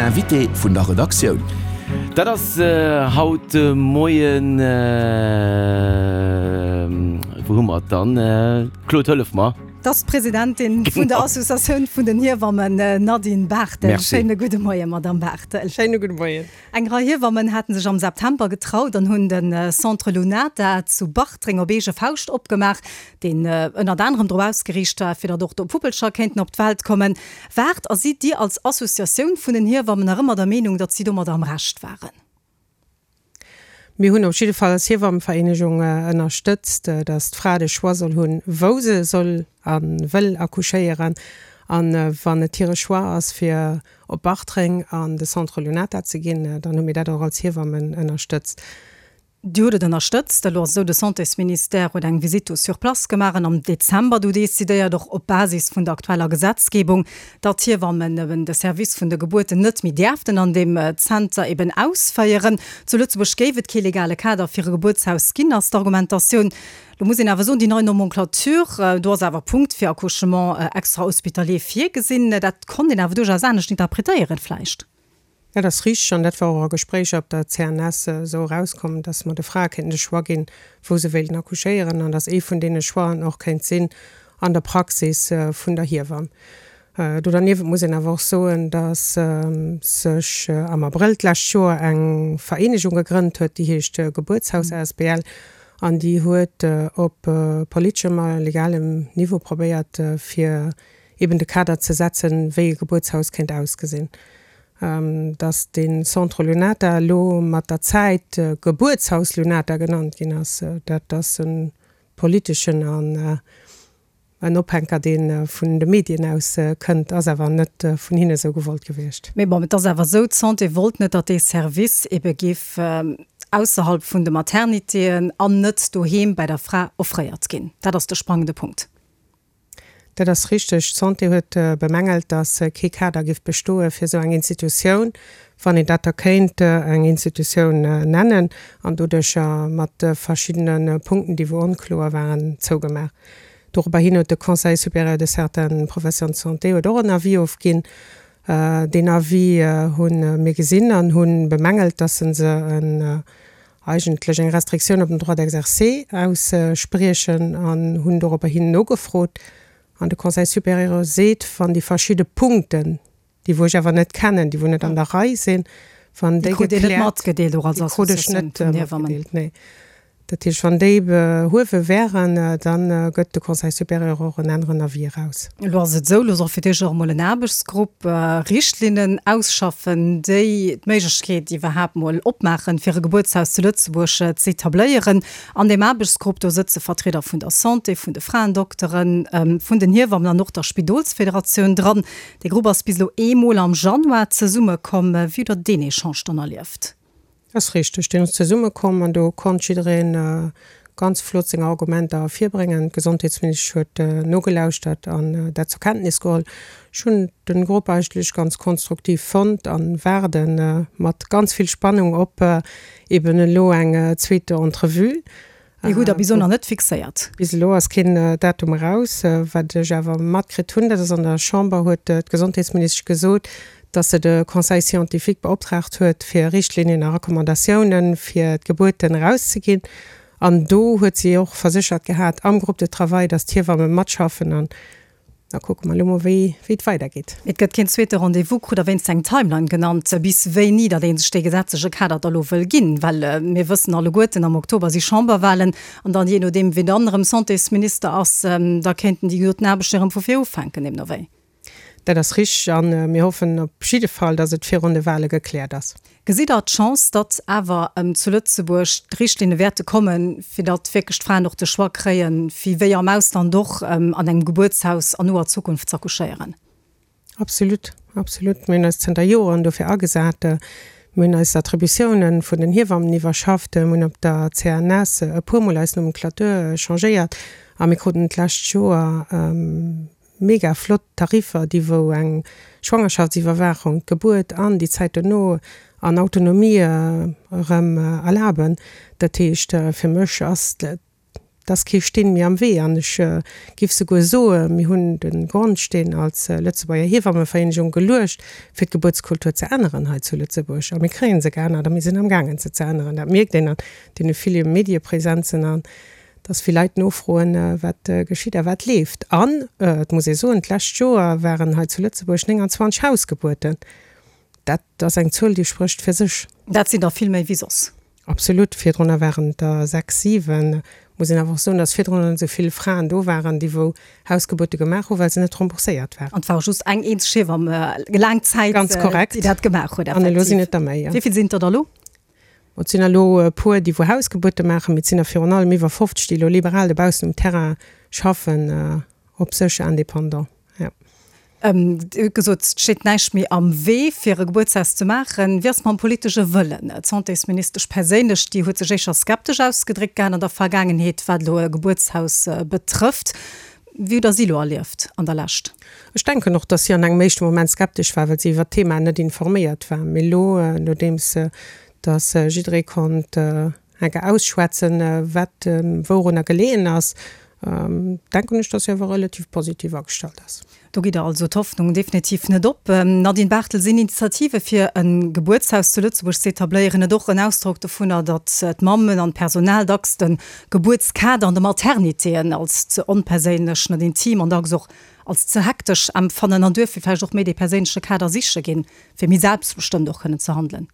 Den Invité vun der Redaktioun. Dat ass haut de Moien, wou hu mer et dann? Claude, hëllef mer. Dat ass d'Presidentin vun der Associatioun vun den Hiewammen, Nadine Barthel. Schéine gudde Moien, Madamm Barthel. Schéine gudde Moien. Eng Rei Hiewammen haten sech am September getraut an hunn de Centre Lunata zu Bartreng op eege Fauscht opgemaach, deen ënnert anerem drop ausgeriicht war, fir datt och do Puppelcher kéinten op d'Welt kommen. Waart a sidd Dir als Associatioun vun den Hiewammen nach ëmmer der Meenung, datt si domadder am Recht waren? Mir hunn op jidde Fall als Hiewammenvereenegung ënnerstëtzt, datt d'Fra de Choix soll hunn, wou se soll a wëll accouchéieren. A wann et hire Choix ass, fir op Bartreng an de Centre Lunata ze ginn, dann hu mir dat och als Hiewammen ënnerstëtzt. Dir hutt et ënnerstëtzt. Elo ass et esou, de Santésministère huet eng Visite do sur place gemaach an am Dezember du decidéiert, och op Basis vun der aktueller Gesetzgebung, datt d'Hiewammen eben de Service vun de Gebuerten net méi däerften an deem Zenter eben ausféieren. Zu Lëtzebuerg géif et kee legale Kader fir e Gebuertshaus ginn, ass d'Argumentatioun. Lo muss een awer soen, déi nei Nomenclature, do ass awer Punkt fir Accouchement extra-hospitalier virgesinn. Dat konnt een awer duerchaus anescht interpretéieren vläicht. Dat ass richteg an dat war och a Gespréicher op der CNS esou erauskomm, dass mer de Frae kéinten de Choix ginn, wou se wéilten accouchéieren an dass ee vun deene Choixen och kéint sinn an der Praxis vun der Hiewamm. Do derniewent muss een awer och soen, dass sech am Abrëll d'lescht Joer eng Vereenegung gegrënnt huet, déi heescht Gebuertshaus asbl an déi huet op politeschem a legalem Niveau probéiert, fir eben de Kader ze setzen, wéi e Gebuertshaus kéint ausgesinn. Dass de Centre Lunata elo mat der Zäit Gebuertshaus Lunata genannt ginn ass, dat ass e politeschen an En Ophänker, dee vun de Medien aus kënnt, ass awer net vun hinne sou gewollt gewiescht. Mee bon, et ass awer esou, d'Santé wollt net, datt dee Service ebe géif ausserhalb vun de Maternitéen an net doheem bei der Fra offréiert ginn. Dat ass de sprangende Punkt. Dat ass richteg. D'Santé huet bemängelt, datt kee Kader géif bestoe fir esou eng Institutioun, wann een dat da kéint eng Institutioun nennen, an doduercher mat verschiddene Punkten, déi wou onkloer waren, zougemaach. Dorobber hin huet de Conseil supérieur de certaines professions de santé huet och en Avis ofginn. Deen Avis hu mir gesinn an hu bemängelt, dass se en eigentlech eng Restriktioun op den Droit d'exercer ausspriechen an hunn dorobber hin nogefrot. An de Conseil supérieur seet, wann déi verschidde Punkten, déi wou ech awer net kennen, déi wou net an der Rei sinn, wann déi gekläert, déi krut ech net matgedeelt, nee. Dat heescht, wann déi behuewe wären, da gëtt de Conseil supérieur och en aneren Avis eraus. Elo ass et esou, elo soll fir d'éischt och emol en Aarbechtsgrupp Richtlinnen ausschaffen, déi d'Méiglechkeet iwwerhaapt mol opmaachen, fir e Gebuertshaus zu Lëtzebuerg z'etabléieren. An deem Aarbechtsgrupp, do sëtze Vertrieder vun der Santé, vun de Fraendokteren, vun den Hiewammen an och der Spidolsfederatioun dran. Dee Grupp ass bis elo eemol am Januar zesummekomm. Wéi hutt Der deen Echange dann erlieft? Ass richteg, deen ass zesummekomm an do konnt jidderee ganz flott seng Argumenter ervirbréngen. D'Gesondheetsministesch huet nogelauschtert an dat zur Kenntnis geholl. Ech hunn de Grupp eigentlech ganz konstruktiv fonnt a waarde mat ganz vill Spannung op eben elo eng zweete Entrevue. Déi hutt Der bis elo nach net fixéiert? Bis elo ass keen Datum eraus. Wat ech awer matkritt hunn, dat ass, an der Chamber huet d'Gesondheetsministesch gesot, datt se de Conseil scientifique beoptraagt huet, fir Richtlinien a Recommandatiounen fir d'Gebuerten erauszeginn. An do huet si och verséchert gehat am Groupe de travail, datt d'Hiewamme matschaffen. An Da kucke mer elo mol, wéi et weidergeet. Et gëtt keen zweete Rendez-vous. Krut Der wéinst eng Timeline genannt, bis wéini datt ee sech dee gesetzleche Kader da lo wëll ginn? Well mir wëssen alleguerten, am Oktober si Chamberwahlen an dann, jee nodeem wien dann erëm Santésminister ass, da kéinten déi gedoten Aarbechten erëm vu vir ufänken, deemno wéi. Dat ass richteg a mir hoffen op jidde Fall, datt et virun de Wahle gekläert ass. Gesitt Der d'Chance, datt awer zu Lëtzebuerg d'Richtlinne wäerte kommen, fir datt wierklech d'Fraen och de Choix kréien, fir wéi am Ausland och an engem Gebuertshaus an noer Zukunft z'accouchéieren? Absolut, absolut. Mir hunn eis zënter Joren dofir agesat. Mir hunn eis Attributiounen vun den Hiewammen iwwerschafft. Mir hunn op der CNS e puermol eis Nomenclature changéiert a mir kruten d'lescht Joer, Mega flott Tariffer, déi wou eng Schwangerschaftsiwwerwaachung, d'Gebuert an déi Zäit dono an Autonomie erëm erlaben. Dat heescht, fir mech ass dat. Et ass kee Steen méi am Wee an ech giff souguer soe mir hunn de Grondsteen als Lëtzebuerger Hiewammevereenegung geluecht, fir d'Gebuertskultur ze änneren hei zu Lëtzebuerg. A mir kréie se geännert a mir sinn amgaangen se ze änneren. Dat mierkt een an deene ville Mediepresenzen an dass vill Leit nofroen, wat geschitt a wat leeft. An et muss ee soen, d'lescht Joer waren hei zu Lëtzebuerg 29 Hausgebuerten. Dat ass eng Zuel, déi sprécht fir sech. Dat sinn der vill méi wéi soss. Absolut. Virdrunner waren et der 6, 7. Muss een awer och soen, dass virdrunner net esou vill Fraen do waren, déi wou Hausgebuerte gemaach hu well se net rembourséiert waren. An et war och just eng eenzeg Hiewamm laang Zäit, Ganz korrekt. déi dat gemaach huet, An elo sinn et der méi, jo. Wéi vill sinn et der da elo? Et sinn elo e puer, déi wou Hausgebuerte maachen, mee et sinn der virun allem iwwer 50, déi elo liberal dobaussen um Terrain schaffen, op sech indépendant, jo. Dir hutt gesot, et steet näischt méi am Wee, fir e Gebuertshaus ze maachen. Wéi ass et mam politesche Wëllen? D'Santésministesch perséinlech, déi huet sech éischer skeptesch ausgedréckt gehat an der Vergaangenheet, wat elo e Gebuertshaus betrëfft. Wéi hutt Der si elo erlieft an der Lescht? Ech denken och, datt si an engem éischte Moment skeptesch war, well si iwwert d'Thema net informéiert war. Mee elo, nodeems datt jidderee konnt enke ausschwätzen, wat wourunner geleeën ass, denken ech, datt si awer relativ positiv agestallt ass. Do gitt Der also d'Hoffnung definitiv net op. Nadine Barthel, Sinn Initiative fir e Gebuertshaus zu Lëtzebuerg ze etabléieren net och en Ausdrock dovunner, datt d'Mammen an d'Personal dacks de Gebuertskader an de Maternitéen als ze onperséinlech, net intim an dacks och als ze hektesch empfannen an duerfir vläicht och méi dee perséinleche Kader siche ginn, fir méi selbstbestëmmt och kënnen ze handelen?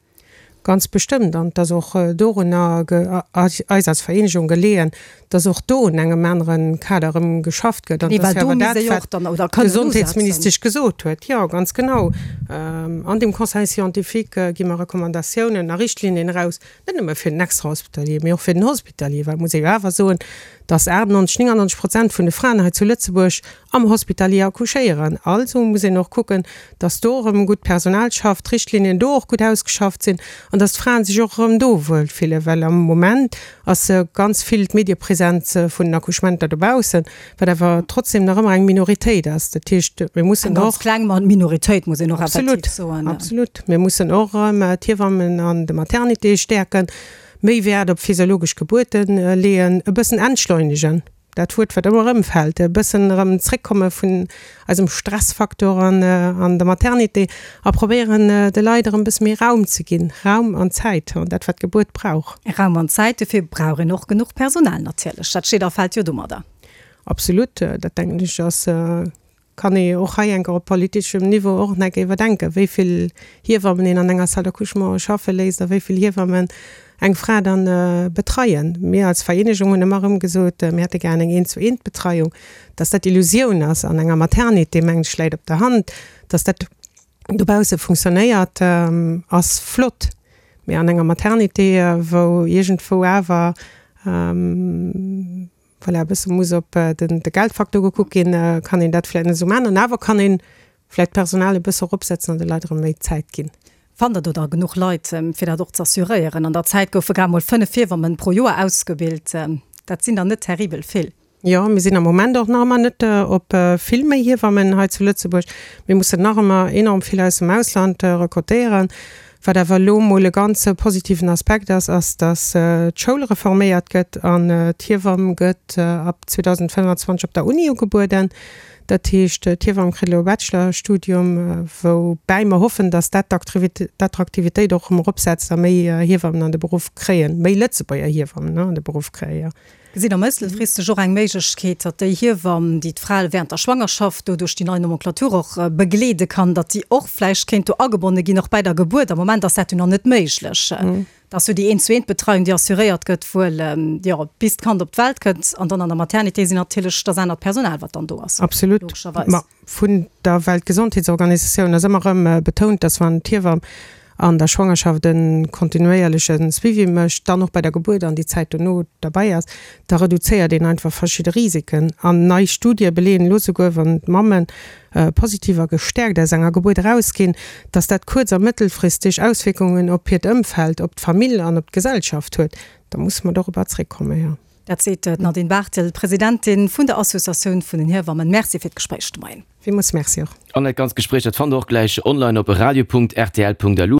Ganz bestëmmt. An et ass och dorunner eis als Vereenegung geleeën, dass och do un engem anere Kader erëm geschafft gëtt. An dat ass jo awer dat, wat d'Gesondheetsministesch gesot huet. Jo, ganz genau. An deem Conseil scientifique gi mer Recommandatiounen a Richtlinien eraus, net nëmme fir den Extrahospitalier, mee och fir den Hospitalier. Well et muss ee jo awer soen, dass 98, 99 Prozent vun de Fraen hei zu Lëtzebuerg am Hospitalier accouchéieren. Also muss een och kucken, dass do erëm gutt Personal schafft, d'Richtlinien do och gutt ausgeschafft sinn an dass d'Fraen sech och erëm do wuel fillen, well am Moment ass ganz vill d'Mediepresenz vun den Accouchementer dobaussen, wat awer trotzdem nach ëmmer eng Minoritéit ass. Dat heescht, mir mussen och. Eng ganz kleng Minoritéit, muss een och effektiv soen. Absolut, absolut. Mir mussen och erëm d'Hiewammen an de Maternitéë stäerken, méi Wäert op physiologesch Gebuerte leeën, e bëssen entschleunegen. Dat Wuert, wat ëmmer erëm fält, e bëssen erëm zréckkomme vun eisem Stressfaktor an an der Maternité a probéieren, de Leit erëm e bësse méi Raum ze ginn, Raum an Zäit, an dat, wat d'Gebuert brauch. Raum an Zäit, dofir brauch een och genuch Personal natierlech. Dat steet a fält jo domadder. Absolut, dat denken ech ass Kann ee och hei enker op politeschem Niveau och nach eng Kéier iwwerdenken, wéi vill Hiewammen een an enger Salle d'accouchement schaffe léisst a wéi vill Hiewammen eng Fra dann betreien. Mir als Vereenegung hunn ëmmer erëm gesot, mir hätte gären eng Eent-zu-eent-Betreiung. Dass dat Illusioun ass an enger Maternité, mengen ech, läit op der Hand. Dass dat dobausse funktionéiert, ass flott, mee an enger Maternité, wou iergendwou awer, Voilà, e bësse muss op de Geldfaktor gekuckt ginn, kann een dat vläicht net esou maachen. An awer kann ee vläicht d'Personal e bësse eropsetzen an de Leit erëm méi Zäit ginn. Fannt Der do da genuch Leit, fir dat och ze assuréieren? An der Zäit goufe grad mol 5 Hiewammen pro Joer ausgebilt. Dat sinn der net terribel vill. Jo, mir sinn am Moment och nach ëmmer net op vill méi Hiewammen hei zu Lëtzebuerg. Mir mussen nach ëmmer enorm vill aus dem Ausland rekrutéieren. Wat awer elo emol e ganz positiven Aspekt ass, ass, datt d'Schoul reforméiert gëtt an d'Hiewamm gëtt ab 2025 op der Uni ugebueden. Dat heescht, d'Hiewamm kritt elo e Bachelorstudium, woubäi mer hoffen, datt dat d'Attraktivitéit och erëm eropsetzt a méi Hiewammen an de Beruff kréien, méi Lëtzebuerger Hiewammen an de Beruff kréien. Gesitt Der mëttelfristeg och eng Méiglechkeet, datt déi Hiewamm, déi d'Frae während der Schwangerschaft do duerch déi nei Nomenclature och begleede kann, datt déi och vläicht kéint do agebonne ginn, och bäi der Gebuert? Am Moment ass dat jo nach net méiglech. Dat ass jo déi Eent-zu-eent-Betreiung, déi assuréiert gëtt wuel, jo, bis d'Kand op d'Welt kënnt. An dann an der Maternité sinn natierlech, dat ass anert Personal, wat dann do ass, Absolut. logescherweis. Ma Vun der Weltgesondheetsorganisatioun ass ëmmer erëm betount, dass wann d'Hiewamm an der Schwangerschaft e kontinuéierleche Suivi mécht, dann och bei der Gebuert an déi Zäit dono derbäi ass, da reduzéiert een einfach verschidde Risiken. An nei Studië beleeën elo souguer, wann d'Mamme positiv a gestäerkt aus enger Gebuert erausginn, dass dat kuerz a mëttelfristeg Auswierkungen op hiert Ëmfeld, op d'Famill an op d'Gesellschaft huet. Da musse mer dorobber zréckkommen, jo. Dat seet d'Nadine Barthel, Presidentin vun der Associatioun vun den Hiewammen. Merci fir d'Gespréich de Moien. Villmools Merci och. An dat ganzt Gespréich, dat fannt der och gläich online op radio.rtl.lu.